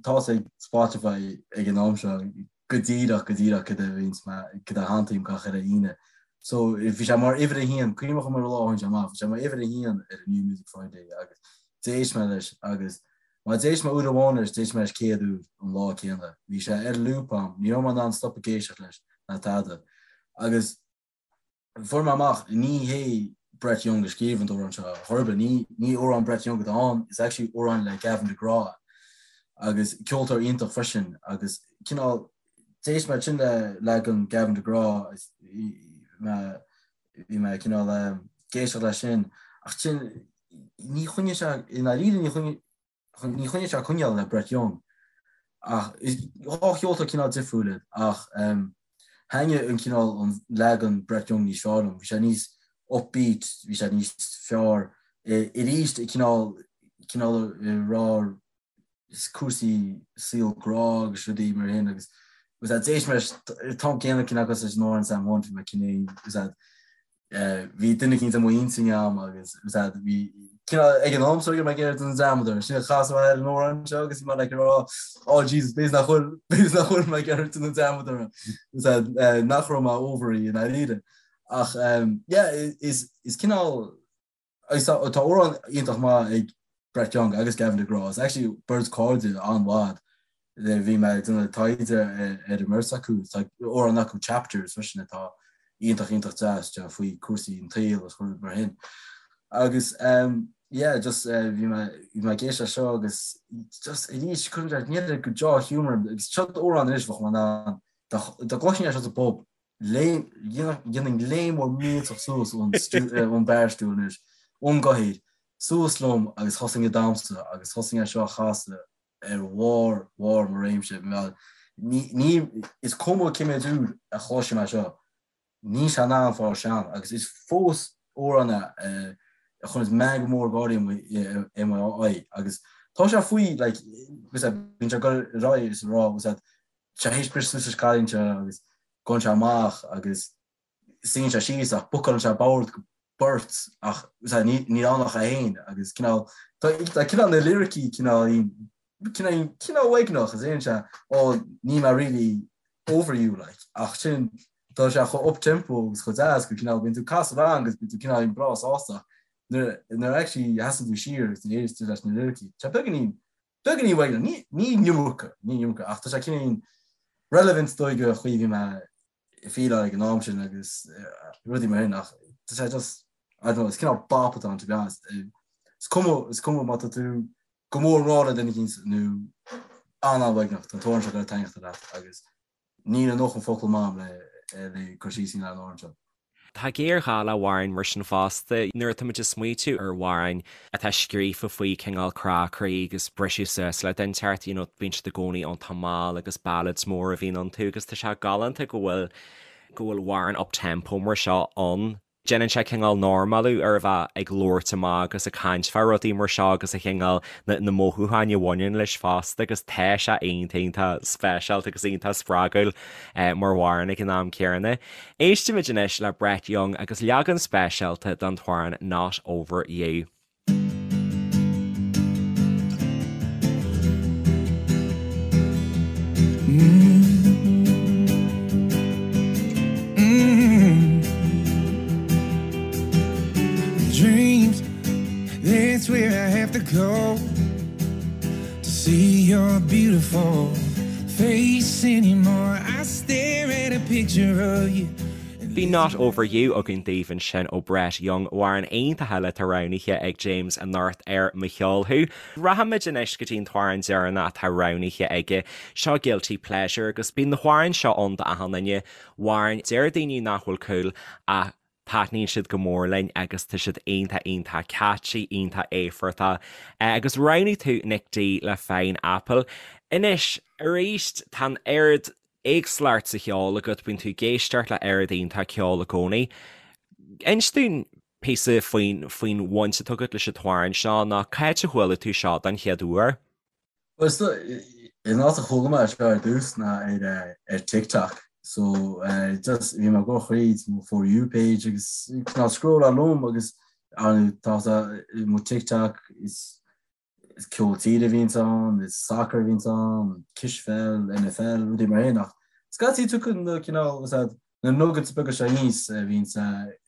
B: tá's ag Spotify ag an am seo go díreach go díreach cad a bhíonns mé cad a shantaím gach uile Aoine. So bhí sé mar uimhir a haon, cuimhneach ar an lá a tháinig sé amach, bhí sé mar uimhir a haon ar an New Music Friday agus d'éist mé leis agus má d'éist mé uair amháin leis, d'éist mé leis 100 uair an lá céanna. Bhí sé ar loop a'm, ní raibh mé in ann stop ag éisteacht leis ná tada. Agus Fuair mé amach, ní hé Brett Young a scríobh an t-amhrán seo, chor ar bith, ní ní amhrán Brett Young atá ann, it's actually amhrán le Gavin DeGraw agus ceoltóir iontach freisin agus cineál d'éist mé ansin le leagan Gavin DeGraw is mé bhí mé cineál ag éisteacht leis sin ach sin ní choinnigh sé i ndáiríre ní choinnigh Ní choinnigh sé coinneáil le Brett Young ach dhá cheoltóir cineál difriúil iad ach thaitnigh an cineál an leagan Brett Young níos fearr liom. Bhí sé níos upbeat, bhí sé níos fearr arís cineál cineál ag rá cúrsaí saol grá agus rudaí mar sin agus agus d'éist mé leis an t-am céanna cineál cosúil leis an amhrán Sam Hunt bhí mé cineál Bhí duine eicínt i m'intinn agam agus bhí cineál ag an am so mé ag iarraidh déanamh dearmad air. Sin a chas mé ar an amhrán seo agus bhí mé like ag rá oh Jesus b'fhéidir nach bhfuil b'fhéidir nach bhfuil mé ag iarraidh déanamh dearmad air nach raibh mé over í i ndáiríre. Ach yeah is is cineál Agus tá amhrán iontach maith ag Brett Young agus Gavin DeGraw. Is actually beirt cairde an-mhaith. Bhí mé ag déanamh taighde ar an mbeirt acu. Tá amhrán acu Chapters freisin atá iontach iontach deas faoi cúrsaí an tsaoil agus rudaí mar sin. Agus yeah just bhí mé bhí mé ag éisteacht leis seo agus just arís cuireann sé níl go deá-ghiúmar agus seo amhrán anois bheadh mé in ann dá gcloisfinn é seo sa bpub Dhéanfainn léim mhór millteach suas ón barstool anois, ón gcathaoir. Suas liom agus thosaigh ag damhsa agus thosaigh é seo a chasadh ar bharr bharr mo réimse. Ní, ní, is cuma cé méid uair a chloisim é seo, níl sé in ann fáil sean agus is fós amhrán é a chuireanns meangadh mór gáirí i mo aghaidh agus tá sé faoi like bíonn sé ag dul ar aghaidh is ag rá tá sé théis briseadh suas leis an cailín seo agus gabhann sé amach agus suíonn sé síos ach bookálann sé bord go beirt ach níl ann ach é féin agus cineál tá cineál na liricí cineál cineál cineál uaigneach is deireann sé oh níl mé really over you like ach sin tá sé chomh up tempo agus chomh deas go cineál bíonn tú ag casadh rang agus bíonn tú cineál breá sásta nuair nuair actually sheasann tú siar agus nuair éist tú leis na liricí tá beagáinín beagáinín uaigneach ní ní an iomarca ní an iomarca ach tá sé cineál relevant dóigh go chaoi bhí mé feeláil ag an am sin agus rudaí mar sin ach tá sé just I don't know, is cineál bop atá ann to be honest. Is cuma is cuma má tá tú go mór i ngrá le duine éicint nó an-an-uaigneach, tá an t-amhrán seo ag goil a taitneacht leat agus níl a ndóthain focal agam le le cur síos a dhéanamh ar an amhrán seo.
A: Tá géarghá le hamhráin mar sin fosta. Nuair atá muid ag smaoitiú ar amhráin atá scríofa faoi cineál crá croí agus briseadh suas le duine inteacht, you know, bíonn siad i gcónaí iontach mall agus ballads móra a bhíonn iontu agus tá sé galánta go bhfuil go bhfuil amhrán up-tempo mar seo ann. Déanann sé cineál normalú ar a bheith ag labhairt amach agus ag caint fá rudaí mar seo agus a chineál na mothúcháin a bhaineann leis fosta agus tá sé iontach iontach speisialta agus iontach spreagúil mar amhrán ag an am céanna. Éistfimid anois le Brett Young agus leagan speisialta den t-amhrán Not Over You.
C: Dreams, that's where I have to go To see your beautiful face anymore I stare at a picture of you
A: Bhí Not Over You againn daoibh ansin ó Brett Young, amhrán iontach eile atá roghnaithe ag James anocht ar Mo Cheol Thú. Rachaimid anois go dtí an t-amhrán deireanach atá roghnaithe aige, seo Guilty Pleasure agus bíonn na hamhráin seo ann d'achan duine, amhráin deir daoine nach bhfuil cool ach taitníonn siad go mór linn agus tá siad iontach iontach catchy, iontach éifeachtach. Agus roghnaigh tú Nick D le Fine Apple. Anois, arís, tá an oiread éagsúlacht sa cheol agat, bíonn tú ag éisteacht le oiread iontach ceoil i gcónaí. Inis dúinn píosa faoin faoin bhaint atá agat leis an t-amhrán seo nó cá háit a chuala tú seo don chéad uair?
B: Bhuel, is dóigh, an áit a chuala mé seo ar dtús ná ar ar TikTok. So just bhí mé ag dul thríd mo For You page agus cineál scrolláil liom agus tá mo TikTok is is ceol tíre a bhíonns ann, is soccer a bhíonns ann, cispheil, NFL, rudaí mar sin ach scaití tugann na cineál is ea na nuggets beaga seo aníos a bhíonns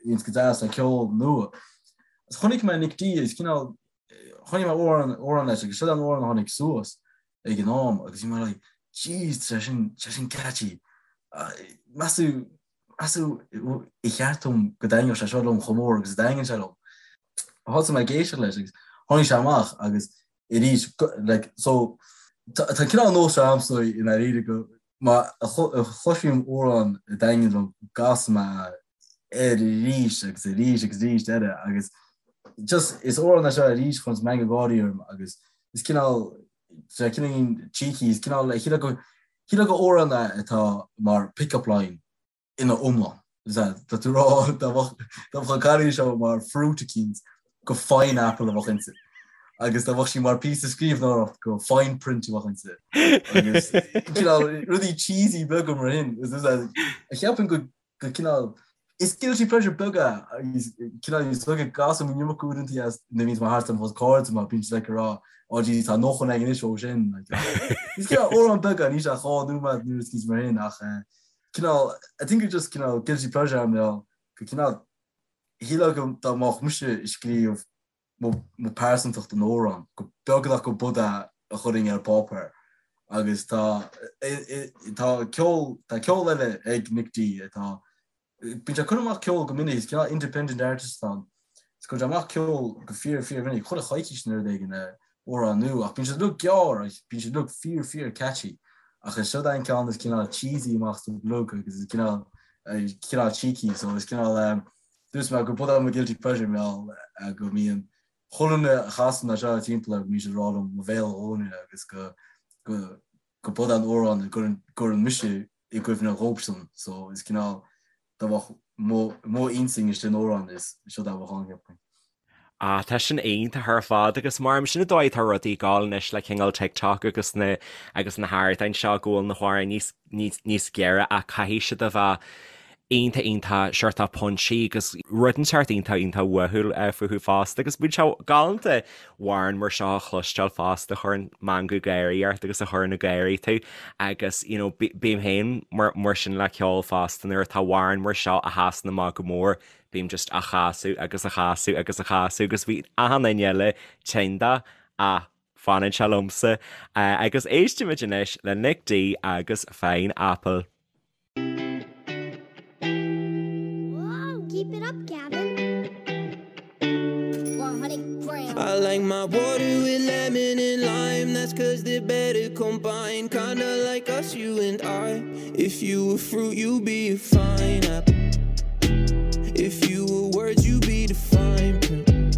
B: bhíonns go deas le ceol nua. Is chonaic mé Nick D is cineál chonaic mé amhrán amhrán leis agus seo an amhrán a tháinig suas ag an am agus bhí mé like jeez tá sé sin tá sé sin catchy. Meas tú Meas tú ar cheart dom go dtaitneodh sé seo liom chomh mór agus a dtaitníonn sé liom. Thosaigh mé ag éisteacht leis agus tháinig sé amach agus arís like so tá cineál nós seo a'msa i ndáiríre go má chloisim amhrán a dtaitníonn liom go gcasaim mé air arís agus arís agus arís eile agus just is amhrán é seo arís a chuireanns meangadh gáirí orm agus is cineál sé cineál cheeky is cineál shílfeá go shílfeá gur amhrán é atá mar pick up line ina iomlán. Tá tú rá dá mbeadh an cailín seo mar fruit eicínt gur fine apple a bheadh inti. Agus dá mbeadh sí mar píosa scríbhneoireacht gur fine print a bheadh inti. Agus cineál rudaí cheesy beaga mar sin. Cheapfainn go go cineál is guilty pleasure beag é agus cineál is dóigh go gcasaim an iomarca uaireanta as nuair a bhíonns mé thart ar mo chuid cairde mar bíonn siad like ag rá oh geez tá nócha againn anois ó sin like is cineál amhrán beag é níl sé ach 2 nóiméad nó rud mar sin ach eh, cineál I think it's just cineál guilty pleasure am go cineál shílfeá go dá mbeadh mise ag scríobh mo pearsantacht in amhrán, go beagnach go b'shiod é a chuirfinn ar páipéar agus tá tá ceol tá ceol eile ag Nick D atá bíonn sé ag cur amach ceol go minic, is cineál independent artist atá ann. Is cuireann sé amach ceol go fíor fíor mhinic, chuile choicís nó rud éigin amhrán nua ach bíonn siad uilig gearr agus bíonn siad uilig fíor fíor catchy ach is siod é an ceann is cineál cheesy amach sa bplug agus is cineál cineál cheeky so is cineál Dúirt mé go b'shiod é mo guilty pleasure mar gheall go mbíonn. Chuile dhuine a chasaim é seo timpeall air go mbíonn siad ag rá liom mo bhéal a dhúnadh agus go go go b'é an amhrán a gcuireann mise i gcuimhne dhóibhsean so is cineál dá mbeadh mo mo intinn istigh in amhrán is seo é a bheadh ann cheapfainn.
A: Ah tá sin iontach ar fad agus mar sin an dóigh atá rudaí ag gabháil anois le cineál TikTok agus na agus na hardáin seo go bhfuil na hamhráin níos níos níos giorra ach caithfidh siad a bheith iontach iontach seort punchy agus rud inteacht iontach iontach uathúil fúthu fosta agus bíonn sé galánta amhrán mar seo a chloisteáil fosta a chuireann meangadh gáirí ort agus a chuireann ag gáirí tú agus you know bím féin mar mar sin le ceol fosta nuair atá amhrán mar seo a sheasann amach go mór bím just á chasadh agus á chasadh agus á chasadh agus bíonn achan duine eile tinn de ach fanann sé liomsa agus éistimid anois le Nic D agus Fine Apple.
C: Keep it up, Gavin. 100 grams. I like my water with lemon and lime. That's cause they're better combined. Kinda like us, you and I. If you were fruit, you'd be a fine apple. If you were words, you'd be the fine print.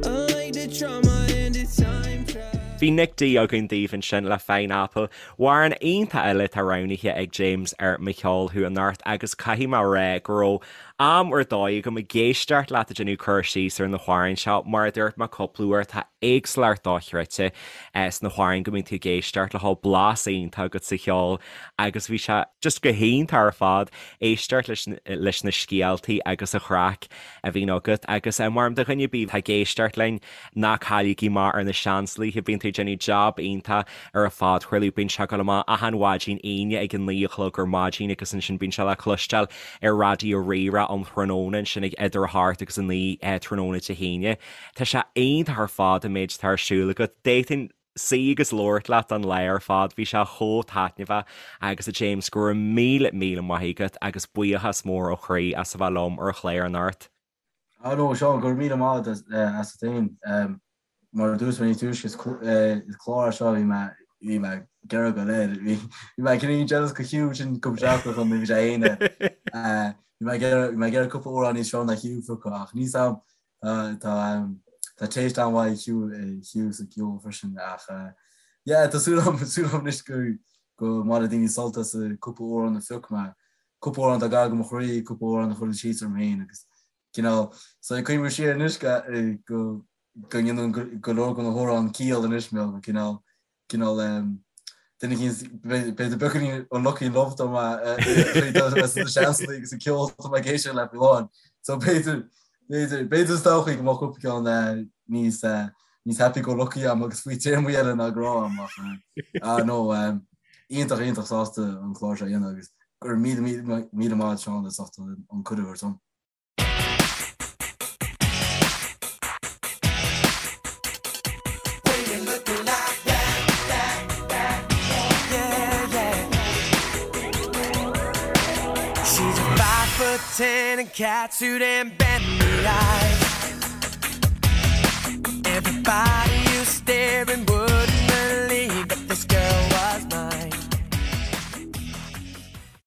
C: I like the trauma and the time travel.
A: Bhí Nic D againn daoibh ansin le Fine Apple. Amhrán iontach eile atá roghnaithe ag James ar Mo Cheol Thú anocht agus caithfidh mé a rá go raibh am ar dóigh agam ag éisteacht leat ag déanamh cur síos ar na hamhráin seo. Mar a dúirt mé cúpla uair, tá éagsúlacht dochreidte sna hamhráin go mbíonn tú ag éisteacht leo, blas iontach agat sa cheol agus bhí sé just go hiontach ar fad éisteacht leis leis na scéaltaí agus an chraic a bhíonn agat agus mar do dhuine ar bith atá ag éisteacht linn, Ná cailligí amach ar na Seansálaithe, bíonn tú ag déanamh jab iontach ar an phodchraoladh, bíonn sé ag dul amach achan mhaidin Aoine ag a 9 a chlog ar maidin agus ansin bíonn sé le cloisteáil ar Raidió Rí-Rá um thráthnóna ansin ag idir a hocht agus a 9 tráthnóna Dé hAoine. Tá sé iontach ar fad an méid atá ar siúl agat. D'fhéadfainn suí agus labhairt leat an lá ar fad, bhí sé chomh taitneamhach agus a James go raibh míle míle maith agat agus buíochas mór ó chroí as a bheith liom ar an chlár anocht.
B: Ah no, Seán, go raibh míle maith agat as féin. Mar a dúirt mé níos túisce, is clár é seo a bhí mé bhí mé ag iarraidh go léir. Bhí mé cineál jealous go Hugh sin cúpla seachtain chun bhí sé aon Bhí mé ag iarraidh cúpla amhrán níos fearr ná Hugh a phiocadh ach níl a fhios agam tá tá taste an-mhaith ag Hugh sa gceol freisin ach yeah tá súil agam súil agam anois go go mbainfidh daoine sult as cúpla amhrán a phioc mé. Cúpla amhrán atá gar do mo chroí, cúpla amhrán a chuireann síos orm féin agus cineál, so ag cuimhniú siar anois go go go ndéanann go leor de na hamhráin ciall anois mé go cineál cineál duine éicint b'fhéidir beagáinín unlucky in love dá mba sna Seansálaithe agus an ceol atá mé ag éisteacht le faoi láthair. So b'fhéidir b'fhéidir b'fhéidir sa todhchaí go mbeadh cúpla ceann níos níos happy go lucky agam agus faoi téarmaí eile ná grá agam ach ah no iontach iontach sásta an clár seo a dhéanamh agus go raibh míle míle míle maith agat Seán as ucht an cuireadh a thabhairt dom.